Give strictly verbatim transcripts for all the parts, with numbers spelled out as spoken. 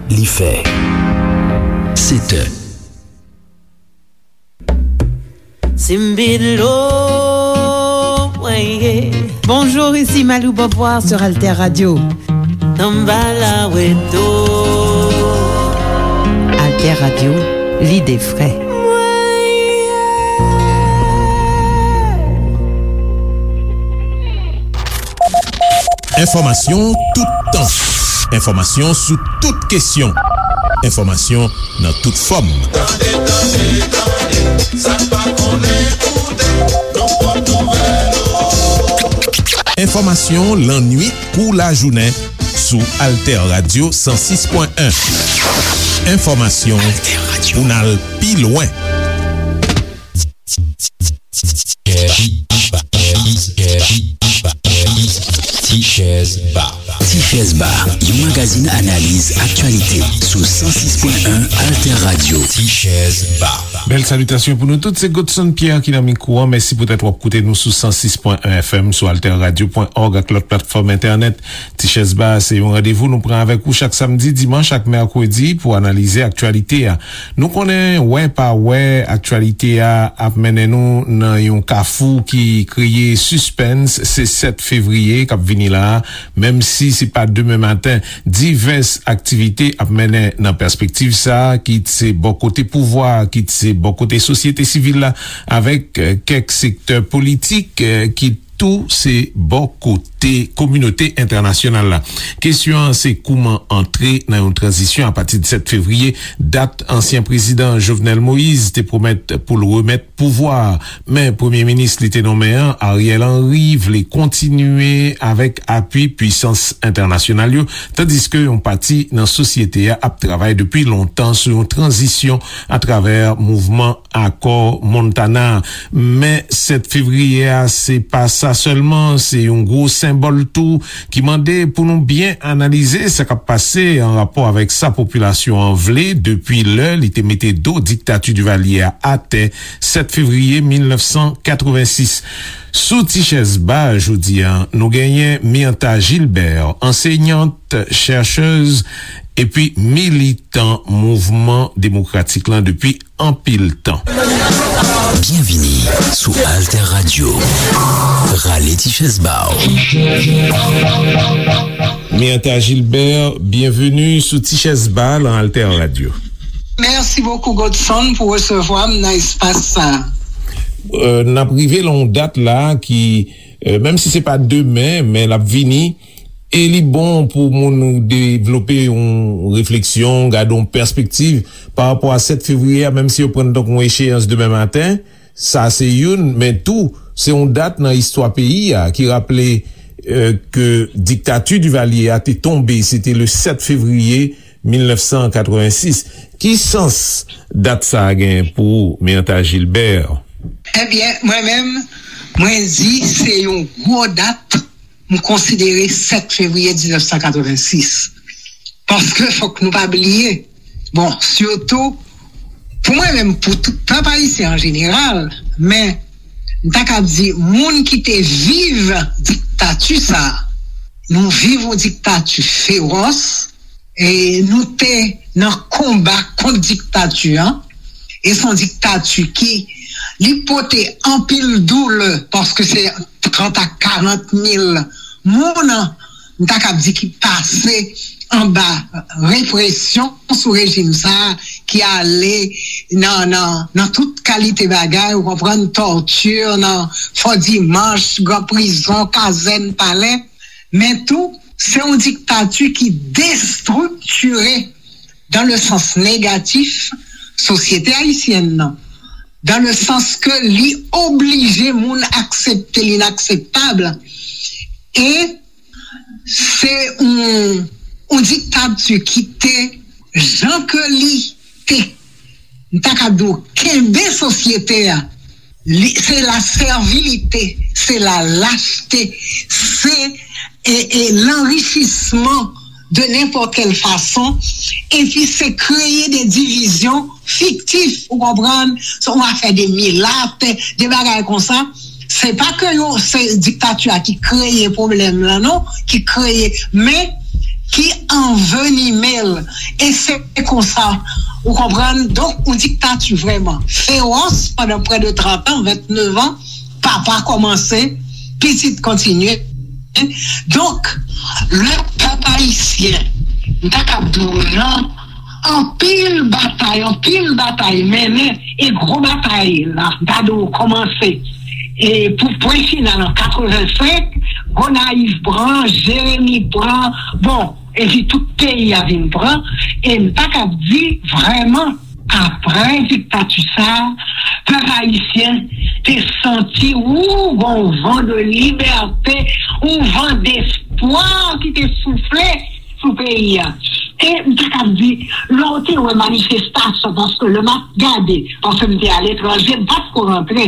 Li fè sèt è. Simbilo, weye. Bonjour, ici Malou Beauvoir sur Alter Radio. Tambala weto. Alter Radio, l'idée vraie. Enfòmasyon toutan. Enfòmasyon sou tout kesyon. Enfòmasyon nan tout fòm. Tande, tande, tande, sa n pa konnen koute, nou pot nouvèl. Enfòmasyon lannwit kou lajounen sou Alter Radio san sis pwen en. Enfòmasyon pou n al pi lwen. Tichèz Ba. Tichèz Ba, yon magazin analiz aktyalite sou san sis pwen en Alter Radio. Tichèz Ba. Bèl salitasyon pou nou tout, se Godson Pierre ki nan mikwo an. Mèsi poutèt w ap koute nou sou san sis pwen en F M, sou alter radio pwen org ak lòt platfòm entènèt. Tichèz Ba se yon randevou nou pran avèk ou chak samdi, dimanch ak mèkredi pou analize aktyalite a. Nou konnen, wè pa wè, aktyalite a ap mennen nou nan yon kafou ki kreye sispens. Se sèt fevriye k ap vini la a. Menm si se pa demen maten, divès aktivite ap mennen nan pèspektiv sa a, kit se bò kote pouvwa a, kit se bò kote sosyete sivil la, avèk, eh, kèk sektè politik, eh, kit tou se bò kote kominote entènasyonal la. Kesyon an se kouman antre nan yon tranzisyon apati de sèt fevriye, dat ansyen prezidan Jovenel Moïse te pwomèt pou l remèt pouvwa a. Men premye minis li te nonmen an, Ariel Henry, vle kontinye avèk apui pwisans entènasyonal yo, tandiske yon pati nan sosyete a ap travay depi lontan sou yon tranzisyon atravè mouvman Akò Montana. Men sèt fevriye a, se pa sa sèlman, se yon gwo senbòl tou ki mande pou nou byen analize sa k ap pase an rapò avèk sa popilasyon an vle depi lè li te mete do diktati Divalye a atè sèt fevriye mil nèf san katrevensis. Sou Tichèz Ba jodi a, nou genyen Myrtha Gilbert, ansenyant, chèchèz, epi militan mouvman demokratik lan depi anpil tan. Byenvini sou Alter Radio. Rale ti chèz ba w. Myrtha Gilbert, byenveni sou Ti Chèz Ba lan Alter Radio. Mèsi bokou, Godson, pou resevwa m nan espas sa a. Euh, n ap rive lan yon dat la ki, euh, menm si se pa demen, men l ap vini. E li bon pou moun devlope yon refleksyon, gade yon pèspektiv pa rapò a sèt fevriye a, menm si yo pran l tankou yon echeyans demen maten. Sa se youn, men tou, se yon dat nan istwa peyi a ki raple, euh, ke diktati Divalye a te tonbe, se te le sèt fevriye mil nèf san katrevensis. Ki sans dat sa a gen pou ou, Myrtha Gilbert? Ebyen, mwen menm, mwen di se yon gwo dat, m konsidere sèt fevriye diznèf san katrevensis. Paske fòk nou pa bliye, bon, sitou, pou mwen menm, pou tout pèp ayisyen an jeneral, men m ta ka di, moun ki te viv diktati sa a, nou viv yon diktati fewòs, e nou te nan konba kont diktati an, e se yon diktati ki, li pote anpil doulè, paske se trant a karant mil moun, m ta kab di, ki pase anba represyon sou rejim sa a, ki ale nan, nan, nan tout kalite bagay, ou konprann, tòti, nan Fò Dimanch, gran prizon, kazèn, palè, men tou, se yon diktati ki destriktire, dans le sens négatif, sosyete ayisyèn nan, dans le sens ke li oblije moun aksepte linakseptab, e se yon, yon diktati ki te, jan ke li te, m ta ka di w, kenbe sosyete a, li, se la sèvilite, se la lachte, se, e, e, lanrichisman de nenpòt kèl fason, epi se kreye de divizyon fiktif, ou konprann, se yon afè de milat, de bagay konsa. Se pa ke yo, se diktati a ki kreye pwoblèm lan, non, ki kreye, men ki anvenime l, E se konsa, ou konprann? Donk, yon diktati vrèman fewòs pandan prè de trant an, venntenev an, papa kòmanse, pitit kontinye. Donk, le pèp ayisyen, m ta kab di w nan anpil batay, anpil batay mennen, e gwo batay la, m ta di w kòmanse. E pou pwen final an katrevensenk, Gonayiv pran, Jeremi pran, bon, epi tout peyi a vin pran, e m ta kab di vrèman, apre diktati sa, pèp ayisyen te santi, ou, gon van de libète, ou van despwa ki te soufle sou peyi a. E m ta kab di, lè w te wè manifestasyon, paske lè m ap gade, paske m te aletranje, m pa t ko rantre.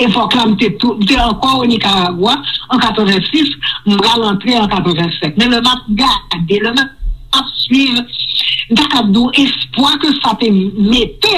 Epòk la, m te tou, m te ankò o Nikaragwa an katrevensis, m pral antre an katrevensenk. Men lè m ap gade, lè m ap swiv, m ta kab di w espwa ke sa te mete,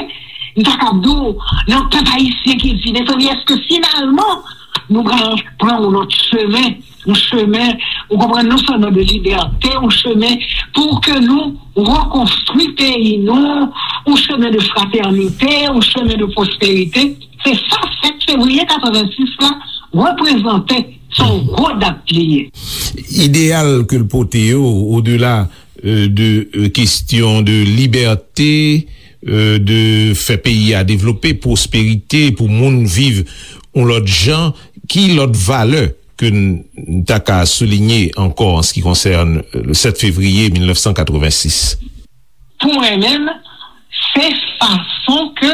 m ta kab di w nan pèp ayisyen ki di, mezanmi, èske finalman nou pral pran yon lòt chemen, yon chemen, ou konprann, non sèlman de libète, yon chemen pou ke nou rekonstwi peyi nou, yon chemen de fratènite, yon chemen de pwosperite. Se sa sèt fevriye katrevensis la reprezante, se yon gwo dat li ye. Ideyal ke l pote yo, odela, euh, de, euh, kestyon de libète, euh, de fè peyi a devlope, pwosperite, pou moun viv yon lòt jan, ki lòt valè ke n, n ta ka soulinye ankò an se ki konsène, euh, le sèt fevriye mil nèf san katrevensis? Pou mwen menm, se fason ke,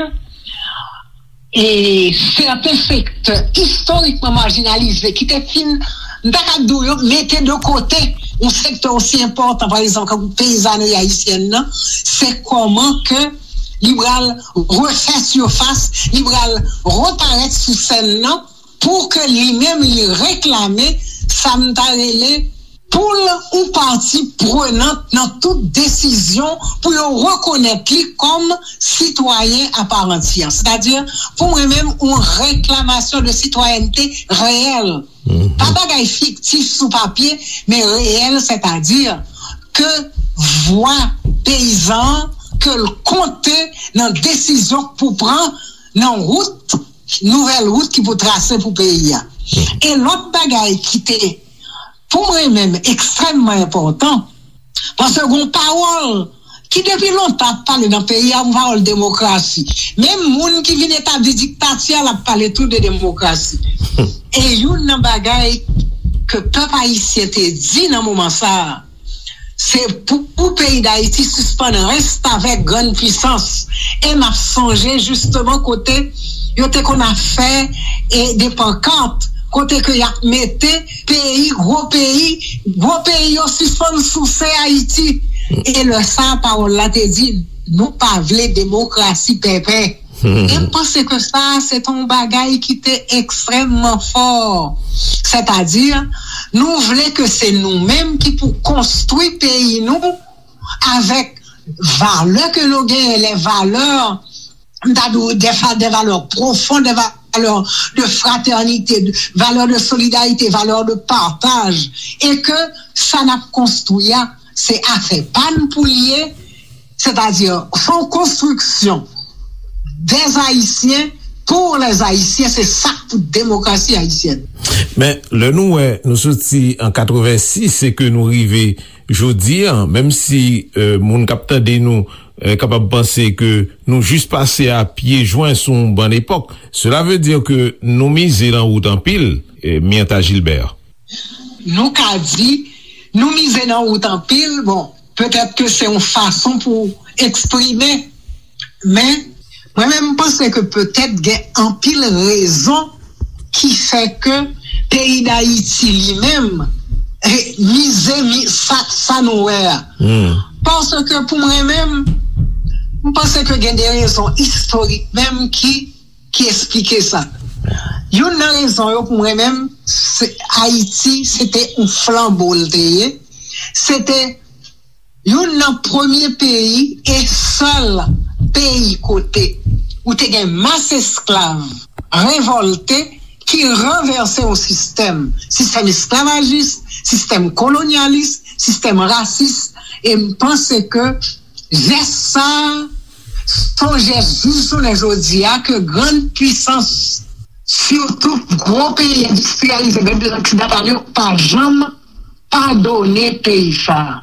e, sèten sektè istorikman majinalize ki te fin, m ta ka di w, yo mete de kote yon sektè osi enpòtan, pa egzanp, tankou peyizanri ayisyèn nan, se kòman ke li pral refè sifas, li pral reparèt sou sèn nan, pou ke li menm li reklame sa m ta rele poul ou pati prenant nan tout desizyon pou yo rekonèt li kòm sitwayen a pa antyè. Sètadi, pou mwen menm, yon reklamasyon de sitwayènte reyèl. Pa bagay fiktif sou papye, men reyèl, sètadi ke vwa peyizan an, ke l konte nan desizyon k pou pran nan wout, nouvèl wout ki pou trase pou peyi a. E lòt bagay ki te, pou mwen menm, ekstrèmman enpòtan, paske gon pawòl ki depi lontan ap pale nan peyi a, yon pawòl demokrasi. Menm moun ki vin etabli diktati a, l ap pale tou de demokrasi. E youn nan bagay ke pèp ayisyen te di nan moman sa a, se pou, pou peyi Dayiti sispann restavèk grann pwisans. E m ap sonje jisteman kote yo te konn ap fè, e, de pankat, kote ke y ap mete peyi, gwo peyi, gwo peyi yo sispann souse Ayiti. E lè sa a, pawòl la te di, nou pa vle demokrasi pèpè. E m panse ke sa, se te yon bagay ki te ekstrèmman fò. Sètadi, nou vle ke se nou menm ki pou konstwi peyi nou avèk valè ke nou genyen, les valeurs, m ta di w, des fa-, des valeurs profondes, des valeurs de fraternité, de, valeurs de solidarité, valeurs de partage, e ke sa n ap konstwi a, se afè pa n pou l ye, sètadi, se yon konstriksyon des Haïtiens pour les Haïtiens, se sa k pou demokrasi ayisyèn. Men, lè nou wè, nou soti an katrevensis e ke nou rive jodi a, menm si, euh, moun k ap tande nou, euh, kapab panse ke nou jis pase a pye jwen sou yon bann epòk, cela veut dire que nou mize nan wout anpil, euh, Myrtha Gilbert. Nou ka di, nou mize nan wout anpil, bon, petèt ke se yon fason pou eksprime, men mwen menm, m panse ke petèt gen anpil rezon ki fè ke peyi Dayiti li menm, eh, mize, mi-, sa, sa nou wè a. Paske pou mwen menm, m panse ke gen de rezon istorik menm ki, ki eksplike sa. Youn nan rezon yo pou mwen menm, se Ayiti, se te yon flanbo l te ye. Se te youn nan premye peyi e sèl peyi kote ou te gen mas esklav revòlte ki ranvèse yon sistèm, sistèm esklavajis, sistèm kolonyalis, sistèm rasis, e m panse ke Jès sa a, se yon jès jis jounen jodi a ke grann pisans, sitou gwo peyi endistriyalize, menm peyi oksidantal yo, pa janm padone peyi sa a.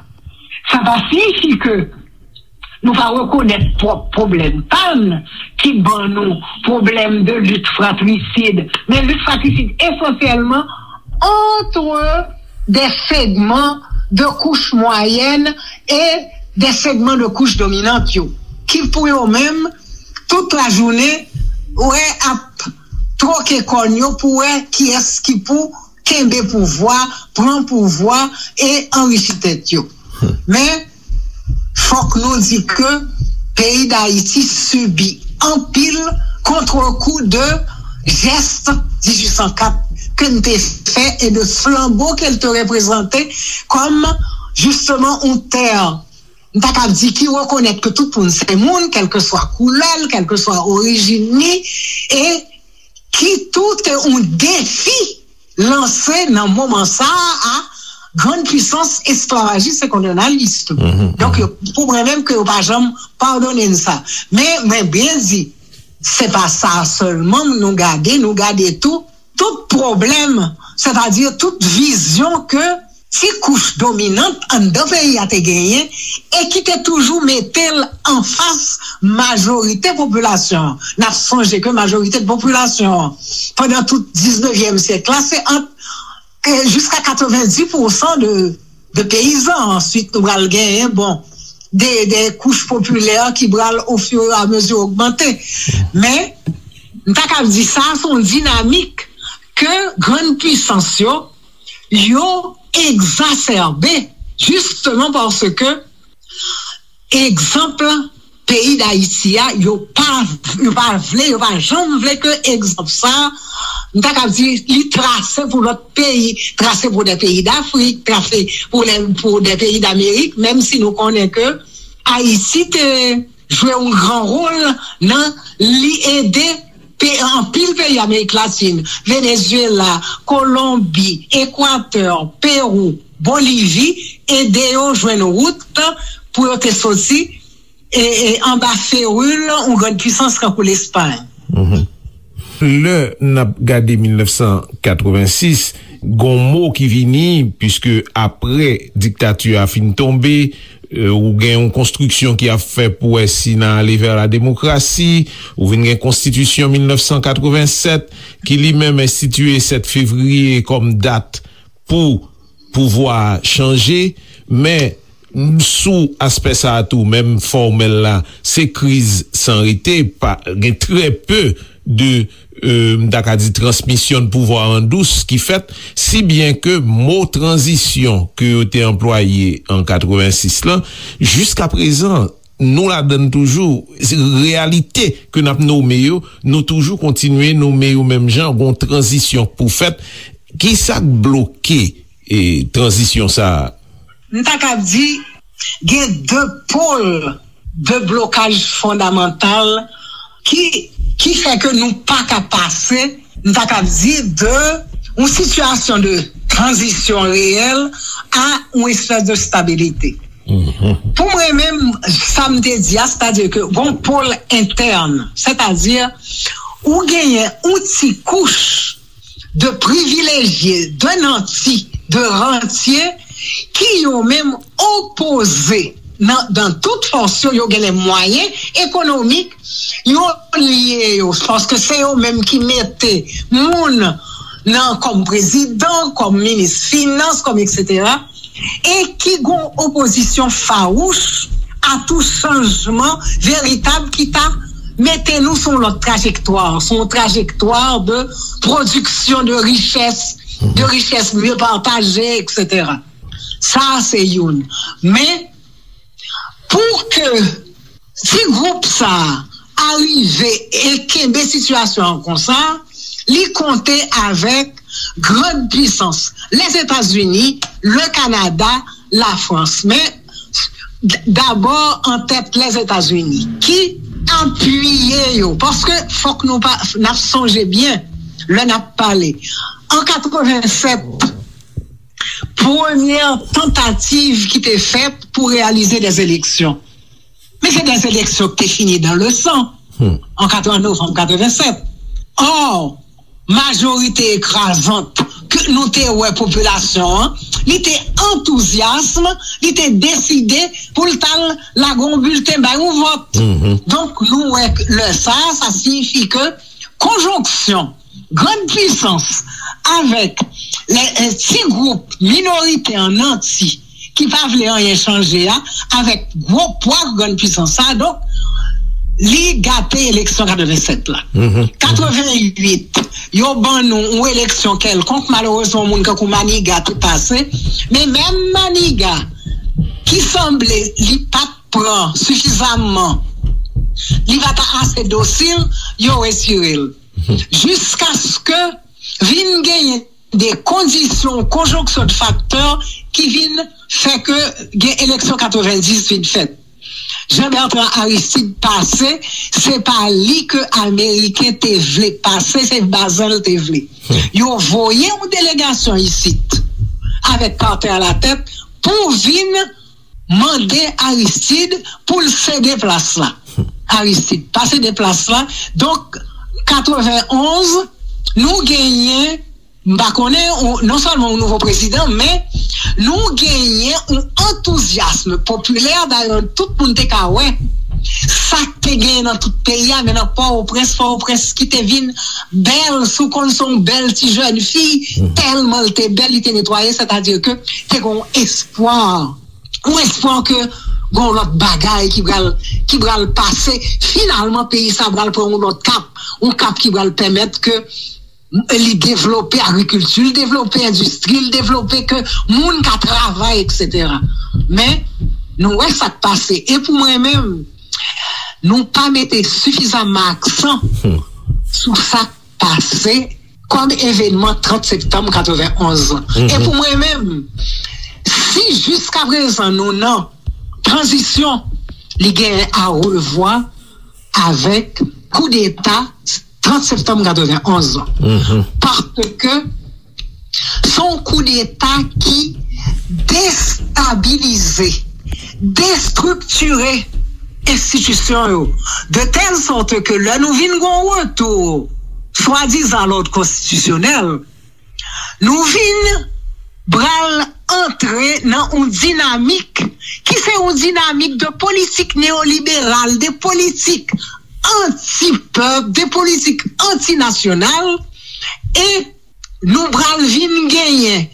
Sa pa siyifi ke nou pa rekonèt pwòp pwoblèm pa n ki ban nou pwoblèm de lit fratrisid, men lit fratrisid esansyèlman entre des segments de couches moyennes et des segments de couches dominantes yo, ki pou yo menm, tout lajounen, wè ap twoke kòn yo pou wè kiyès ki pou kenbe pouvwa, pran pouvwa e anrichi tèt yo. Men, fòk nou di ke peyi Dayiti sibi anpil kontrekou de jès dizuit san kat ke n te fè e de flanbo ke l te reprezante kòm, jisteman, yon tè, m ta ka di, ki rekonèt ke tout moun se moun, kèlkeswa koulè l, kèlkeswa orijin li, e ki tou te yon defi lanse nan moman sa a a grann pisans esklavajis e kolonyalis tou. Donk, yo, pou mwen menm, ke yo pa janm padone n sa. Men, mwen byen di, se pa sa sèlman nou gade, nou gade tou, tout pwoblèm, sètadi tout vizyon ke ti kouch dominant anndan peyi a te genyen e ki te toujou mete l anfas majorite popilasyon an. N ap sonje ke majorite popilasyon an, pandan tout diznevyèm syèk la, se ant, e, jiska katrevenndis pousan de, de peyizan. Answit, nou pral genyen, bon, de, de kouch popilè ki pral ofiramezi ogmante. Men, m ta ka di sa, se yon dinamik ke grann pisans yo, yo egzasèbe, jisteman paske, egzanp, peyi Dayiti a, yo pa, yo pa vle, yo pa janm vle ke egzanp sa, m ta ka di, li trase pou lòt peyi, trase pou de peyi Dafrik, trase pou de, pou de peyi Damerik, menm si nou konnen ke Ayiti te jwe yon gran wòl nan li ede pe-, anpil peyi Amerik Latin, Venezuela, Kolonbi, Ekwatè, Pewou, Bolivi, ede yo jwenn wout pou yo te soti, e, e, anba feril yon grann pisans tankou Lespay. Lè n ap gade mil nèf san katrevensis, gon mo ki vini, piske apre diktati a fin tonbe, e, ou gen yon konstriksyon ki ap fè pou wè si n a ale vè la demokrasi, ou vin gen konstitisyon mil nèf san katrevensèt, ki li menm enstitiye sèt fevriye kòm dat pou pouvwa a chanje, men sou aspè sa a tou, menm fòmèl la, se kriz san rete, pa, gen trè pe de, e, m ta ka di, transmisyon de pouvwa an dous ki fèt, si byen ke mo tranzisyon ke yo te anplwaye an katrevensis lan, jiska prezan, nou ladann toujou, se reyalite ke n ap nome yo, nou toujou kontinye nome yo menm jan, gon tranzisyon pou fèt. Kisa k bloke, e, tranzisyon sa a? M ta ka di, gen de pòl de blokaj fondamantal ki, ki fè ke nou pa ka pase, m ta ka di, de yon sitiyasyon de tranzisyon reyèl a yon espès de stabilite. Pou mwen menm, sa m te di a, sètadi ke gon pòl entèn, sètadi ou genyen yon ti kouch de privilejye, de nanti, de rantye ki yo menm opoze nan, nan tout fòs yo, yo gen lè mwayen ekonomik, yo lye yo, paske se yo menm ki mete moun nan kòm prezidan, kòm minis finans, kòm etsetera, e ki gon opozisyon fawouch a tou chanjman veritab ki ta mete nou sou yon lòt trajektwa, sou yon trajektwa de pwodiksyon de richès, de richès mye pataje, etsetera. Sa a se youn. Men, pou ke ti gwoup sa a rive e kenbe sitiyasyon an konsa, li konte avèk grann pisans, Lèzetazini, le Kanada, Lafrans. Men, d-, dabò an tèt Lèzetazini, ki apiye yo, paske fòk nou pa, n ap sonje byen, lè n ap pale. An katrevennsèt, premyè tantativ ki te fèt pou reyalize dè eleksyon. Men se de eleksyon ki te fini dans le sang an novanm katrevennsèt. Or, majorite ekrazant ke nou te wè popilasyon an, li te antouzyasm, li te deside pou l t al lage yon bilten bay yon vòt. Donk, nou wè lè sa, sa siyifi ke konjonksyon grann pisans avèk lè ti gwoup minorite an nanti ki pa vle anyen chanje a, avèk gwo pwa grann pisans sa, donk, li gate eleksyon katrevennsèt la. Katrevenwit, yo ban nou yon eleksyon kèlkonk, malerezman, yon moun kankou Maniga te pase, men menm Maniga, ki sanble li pa t pran sifizamman, li pa t ase dosil, yo retire l. Jiskaske vin genyen de kondisyon, konjonksyon de faktè ki vin fè ke gen eleksyon katrevendis vin fèt. Jean Bertrand Aristide pase, se pa li ke Ameriken te vle pase, se Bazen l te vle. Yo voye yon delegasyon isit avèk Carter alatèt pou vin mande Aristide pou l sede plas la. Aristide pa sede plas la. Donk, katrevenonz, nou genyen, m pa konnen, ou, non sèlman yon nouvo prezidan, men nou genyen yon antouzyasm popilè, dayè tout moun te ka wè sa k te genyen nan tout peyi a, men nan Pòtoprens, Pòtoprens ki te vin bèl, si w konn se yon bèl ti jèn fi, tèlman l te bèl, li te netwaye, sètadi ke te gen yon espwa, yon espwa ke gen yon lòt bagay ki pral, ki pral pase. Finalman, peyi sa pral pran yon lòt kap, yon kap ki pral pèmèt ke li devlope agrikilti, li devlope endistri, li devlope ke moun ka travay, etsetera. Men, nou wè sa k pase. E pou mwen menm, nou pa mete sifizamman aksan sou sa k pase kòm evenman trant septanm katrevenonz lan. E pou mwen menm, si jiskaprezan nou nan tranzisyon, li genyen a revwa avèk koudeta trant septanm katrevenonz lan. Paske se yon koudeta ki destabilize, destriktire enstitisyon yo, de tèl sòt ke lè nou vin gen yon retou swadizan lòd konstitisyonèl, nou vin pral antre nan yon dinamik ki se yon dinamik de politik neyoliberal, de politik anti-pèp, de politik antinasyonal, e nou pral vin genyen,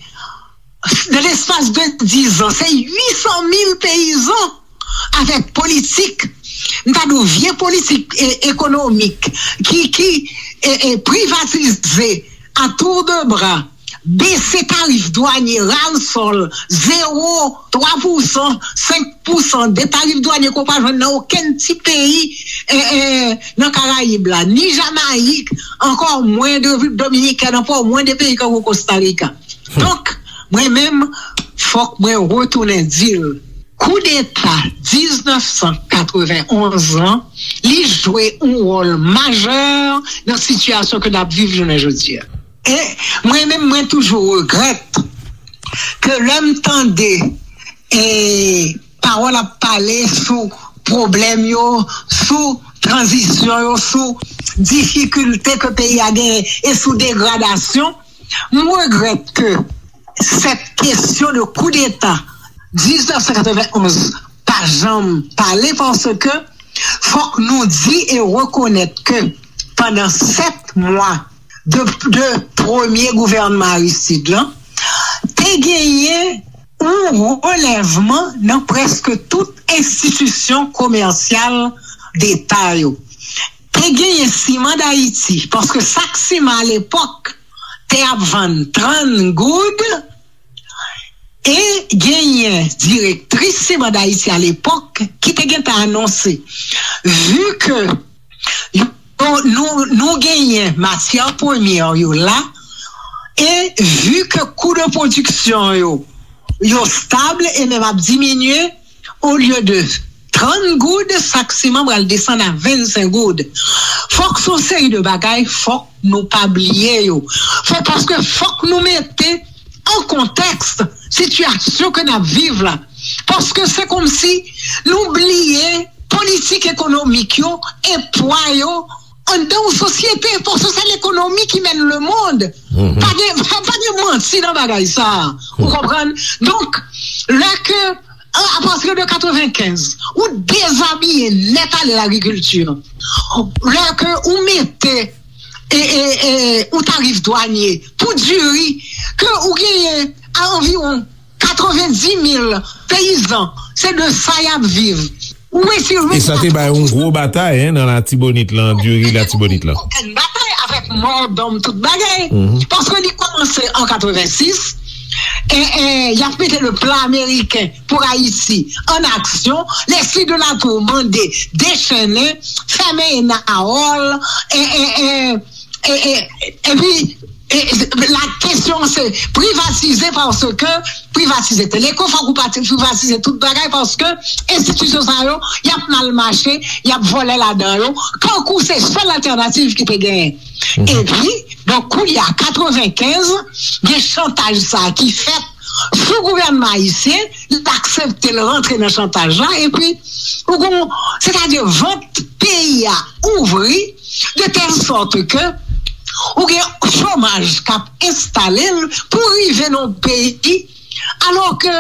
nan lespas de diz an, se uit san mil peyizan avèk politik, m ta di w vye politik e, ekonomik, ki, ki e, e, privatize a tour de bras, bese tarif dwanye, ras al, zewo, twa pousan, senk pousan de tarif dwanye ke w pa jwenn nan okenn ti peyi e, e, nan Karayib la, ni Jamayik, ankò mwen de Repiblik Dominikèn, ankò mwen de peyi tankou Kostarika. Donk, mwen menm, fòk mwen retounen di l, koudeta diznèf san katrevenonz lan, li jwe yon wòl majè nan sitiyasyon ke n ap viv jounen jodi a. E mwen menm, mwen toujou regrèt ke lè m tande, e, pawòl ap pale sou pwoblèm yo, sou tranzisyon yo, sou difikilte ke peyi a genyen e sou degradasyon, m regrèt ke sèt kesyon de koudeta diznèf san katrevenonz pa janm pale, paske fòk nou di e rekonèt ke pandan sèt mwa de, de premye gouvènman Aristide lan, te genyen yon relèvman nan prèske tout enstitisyon komèsyal deta yo. Te genyen Siman Dayiti, paske sak siman alepòk te ap vann trant goud, e genyen direktris Siman Dayiti alepòk ki te gentan anonse, vi ke yo, nou, nou genyen matyè premyè yo la, e vi ke kou de pwodiksyon yo, yo stab e menm ap diminye, olye de trant goud, sak siman pral desann a vennsenk goud. Fòk se yon seri de bagay, fòk nou pa bliye yo. Fò, paske fòk nou mete an kontèks sitiyasyon ke n ap viv la. Paske se kòmsi nou bliye ekonomik yo e pwa yo anndan yon sosyete, paske se lekonomi ki mèn lemonn. Pa gen, pa gen manti nan bagay sa a. Ou konprann? Donk, lè ke, a, à partir de quatre-vingt-quinze, ou dezabiye nèt ale lagrikilti. Lè ke ou mete, e, e, e, ou tarif dwanye pou diri, ke ou genyen a anviwon katrevenndimil peyizan, se de sa y ap viv. Ou retire. E sa te bay yon gwo batay, en, nan Latibonit lan, diri Latibonit lan. Yon batay avèk mò dòm, tout bagay. Paske li kòmanse an katrevensis, e, e, y ap mete le plan américain pour Haïti en action. Leslie de la Tour mande dechennen, fèmen Enawòl, e, e, e, e, e, epi, e, la kesyon se privatize, paske privatize Teleco, fòk ou pati-, privatize tout bagay, paske enstitisyon sa yo, y ap mal mache, y ap vòlè ladan yo, kankou se sèl altènativ ki te genyen. Epi, donk, kounye a, katrevenkenz, gen chantaj sa ki fèt sou gouvènman ayisyen, li aksepte l rantre nan chantaj la, epi, ou gon, sètadi vant peyi a ouvri, de tèl sòt ke ou gen chomaj k ap enstale l pou rive nan yon peyi, alò ke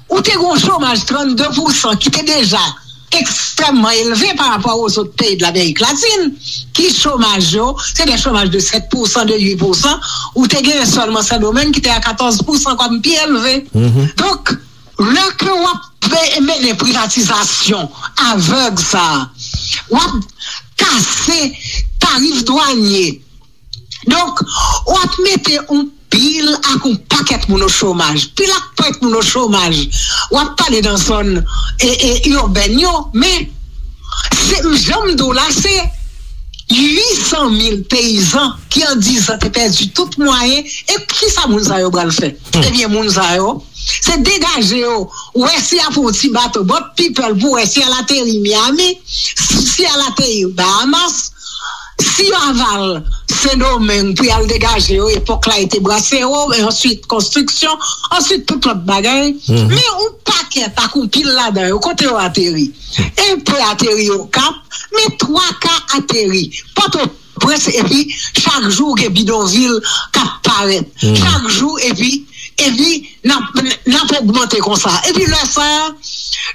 ou te gen yon chomaj trannde pousan ki te deja ekstrèmman elve pa rapò a zòt peyi de Lamerik Latin, ki chomaj yo, se de chomaj de sèt pousan, de uit pousan, ou te gen sèlman Sendomeng ki te a katòz pousan kòm pi elve. Donk, lè ke w ap pe-, mennen privatizasyon avèg sa a, w ap kase tarif dwanye. Donk, w ap mete yon pil ak yon pakèt moun o chomaj. Pil ak pakèt moun o chomaj. W ap pale nan zòn, e, e, ibèn yo, men se, jan m di w la, se uit san mil peyizan ki an diz an te pèdi tout mwayen. E kisa moun sa yo pral fè? Ebyen, moun sa yo, se degaje yo, wè si y ap yon ti bato, boat people, pou wè si y al ateri Miami, si y al ateri Bahamas, si y al Sendomeng pou y al degaje yo, epòk la e te brasero, e answit konstriksyon, answit tout lòt bagay. Men yon pakèt ak yon pil ladan yo, kote yo ateri? Enpe ateri Okap, men twa ka ateri Pòtoprens, epi chak jou gen bidonvil k ap parèt. Chak jou, epi, epi n ap, n ap ogmante konsa. Epi lè sa a,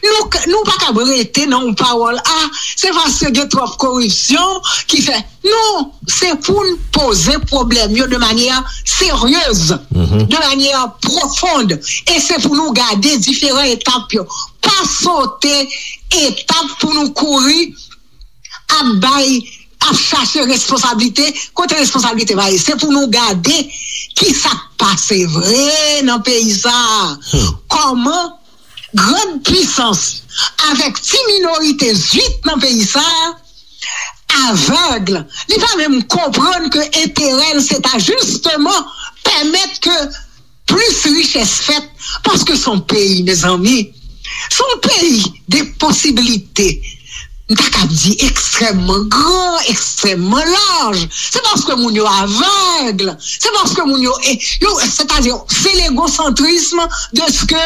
nou, nou pa kab rete nan yon pawòl, a, se paske gen twòp koripsyon ki fè. Non, se pou n poze pwoblèm yo de manyè seryez, de manyè pwofond, e se pou nou gade diferan etap yo. Pa sote etap pou nou kouri ap bay, ap chache responsablite, kote responsablite pa ye. Se pou nou gade ki sa k pase vre nan peyi sa a. Kòman grann pwisans avèk ti minorite zwit nan peyi sa a avèg, li pa menm konprann ke enterè l se ta jisteman pèmèt ke plis richès fèt, paske se yon peyi, mezanmi, se yon peyi de posiblite. M ta kab di ekstrèmman gran, ekstrèmman laj. Se paske moun yo avèg. Se paske moun yo, e, yo, sètadi, se legosantrism de ke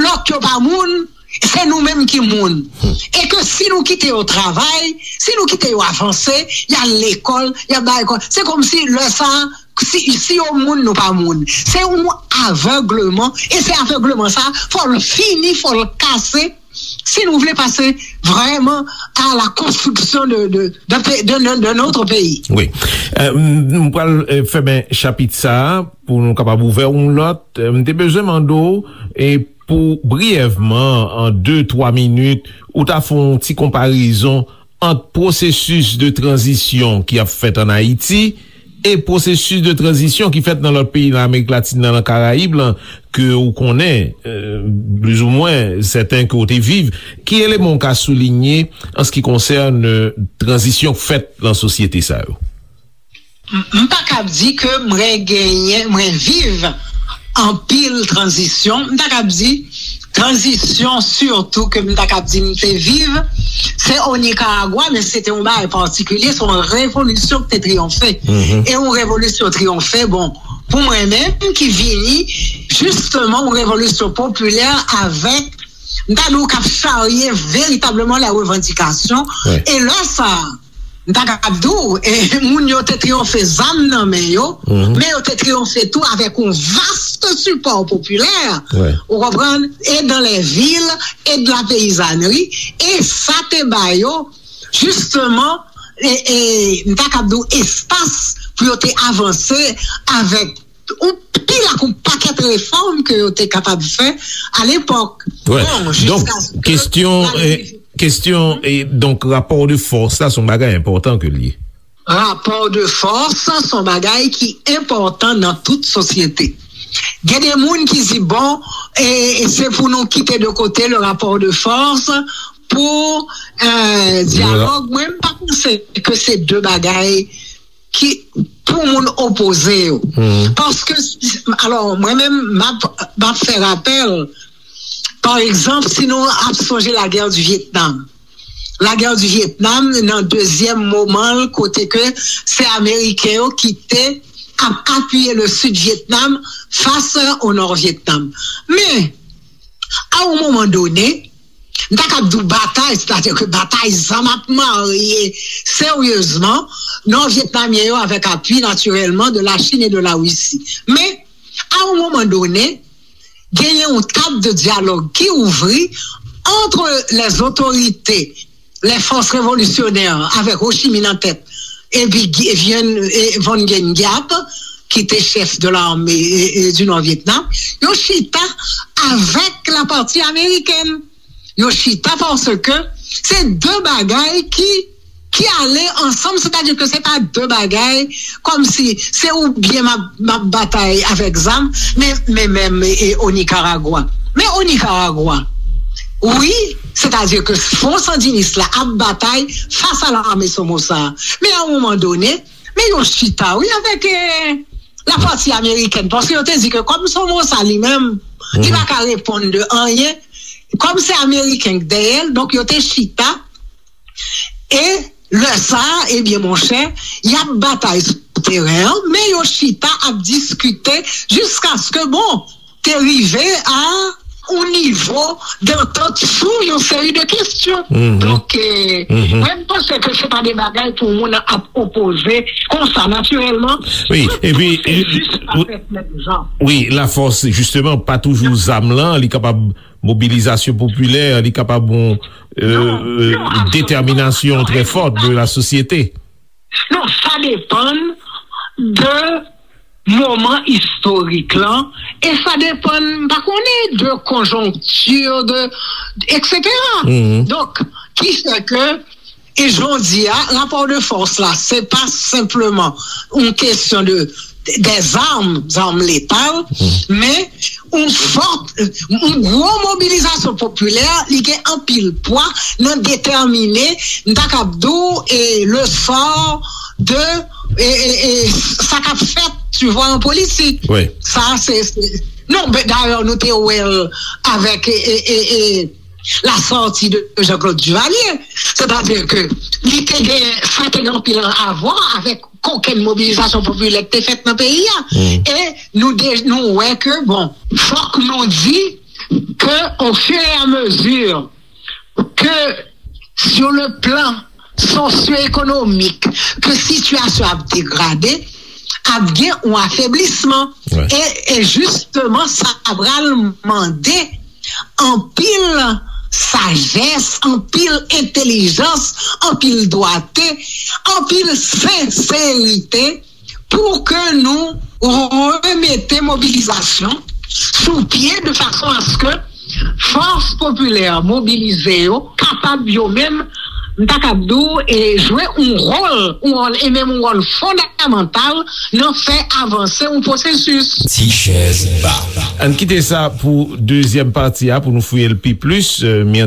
lòt yo pa moun, se nou menm ki moun. E ke si nou kite yo travay, si nou kite yo avanse, y al lekòl, y al bay lekòl, se kòmsi lè sa a, si, si yo moun, nou pa moun. Se yon avègleman, e se avègleman sa, fò l fini, fò l kase, si nou vle pase vrèman à la construction de, de, de, pe-, de, de, de notre pays. Wi. Euh, m, m pral, euh, fèmen chapit sa a pou nou kapab ouvè yon lòt. Euh, m te bezwen mande w, e pou briyèvman, an de, twa minit, ou ta fè yon ti konparezon ant pwosesis de tranzisyon ki ap fèt ann Ayiti e pwosesis de tranzisyon ki fèt nan lòt peyi nan Amerik Latin nan, nan Karayib lan, ke ou konnen, euh, plizoumwen, sèten ke ou te viv. Ki eleman ou ka soulinye an se ki konsène, euh, tranzisyon k fèt nan sosyete sa yo? M, m pa kab di ke mwen genyen, mwen viv anpil tranzisyon. M ta kab di tranzisyon sitou ke m ta kab di m te viv, se o Nikaragwa, men se te yon bagay patikilye, se yon revolisyon ki te triyonfe. E yon revolisyon triyonfe, bon, pou mwen menm ki vini, jisteman, yon revolisyon popilè avèk m ta di w k ap charye veritableman lè revandikasyon. E lè sa a, m ta kab di w, e, moun yo te triyonfe zam nan men yo, men yo te triyonfe tou avèk yon vast sipò popilè, ou konprann, e dans les villes, e de la paysannerie, e sa te ba yo, jisteman, e, e, m ta kab di w espas pou yo te avanse avèk yon pil ak yon pakèt refòm ke yo te kapab fè alepòk. Bon, donk, jiskaske kestyon, la e, kestyon, e, donk, rapò de fòs la, se yon bagay enpòtan ke l ye. Rapò de fòs, se yon bagay ki enpòtan nan tout sosyete. Gen de moun ki di, bon, e, e se pou nou kite de kote le rapò de fòs pou, e, dyalòg. Mwen, m pa panse ke se de bagay ki pou moun opoze yo. Paske, alò, mwen menm, m ap, m ap fè rapèl, pa egzanp, si nou ap sonje lagè di Vyetnam. Lagè di Vyetnam, nan dezyèm moman l, kote ke se Ameriken yo ki te ap apiye le Sud Vietnam fas o Nò Vyetnam. Men, a yon moman done, m ta kab di w batay, sètadi ke batay zam ap marye seryezman Nò Vyetnamyen yo avèk apui, natirèlman, de la Chine et de la Russie. Men, a yon moman done, genyen yon tab de dyalòg ki ouvri entre les autorités, les forces révolutionnaires, avec Ho Chi Minh en tête, epi Vien, e, Von Guen Giap, ki te chèf de l'armée, e, e, du Nord Vietnam, yo chita avèk la pati amerikèn. Yo chita paske se de bagay ki, ki ale ansanm, sètadi ke se pa de bagay kòmsi se oubyen m ap, m ap batay avèk zam, men, men menm, e, o Nikaragwa. Men o Nikaragwa, wi, sètadi ke fwon sandinis la ap batay fas a lame Somoza. Men a yon moman done, men yo chita, wi, avèk, e, la pati amerikèn, paske yo te di ke kòm Somoza li menm, li pa ka reponn de anyen, kòm se ameriken k dèyè l, donk yo te chita, e lè sa a, ebyen, monchè, y ap batay sou teren an, men yo chita ap diskite jiskaske, bon, te rive a yon nivo dantant sou yon seri de kesyon. Donk, e, mwen, m panse ke se pa de bagay pou moun ap opoze konsa, natirèlman. Wi, epi, se jis pa fèt menm jan. Wi, lafòs, jisteman, pa toujou zam lan, li kapab mobilizasyon popilè, li kapab yon, e, detèminasyon trè fòt de la sosyete. Non, sa depann de moman istorik lan, e sa depann, m pa konnen, de konjonkti, de, etsetera. Donk, ki fè ke, e jodi a, rapò de fòs la, se pa senpleman yon kesyon de, de zam, zam letal, men yon fòt, yon gwo mobilizasyon popilè, li gen anpil pwa nan detèmine, m ta kab di w, e le sò de, e, e, e sa k ap fèt, tu vois, an politik. Sa, se, se, non, ben, dayè, nou te wè l avèk, e, e, e, e, la sortie de Jean-Claude Duvalier. Sètadi ke li te gen, sa te gen anpil a vwa avèk kokenn mobilizasyon popilè ki te fèt nan peyi a. E nou de, nou wè ke, bon, fòk nou di ke, au fur et à mesure que sur le plan socio-économique, ke sitiyasyon ap degrade, ap gen yon afeblisman. E, e jisteman, sa pral mande anpil sajès, anpil entèlijans, anpil dwate, anpil senserite pou ke nou remete mobilizasyon sou pye de fason aske fòs popilè mobilize yo kapab yo menm, m ta kab di w, e jwe yon wòl, yon wòl, e menm yon wòl fondamantal nan fè avanse yon pwosesis. Ti chèz ba. Ann kite sa pou dezyèm pati a, pou nou fouye l pi plis, e, mi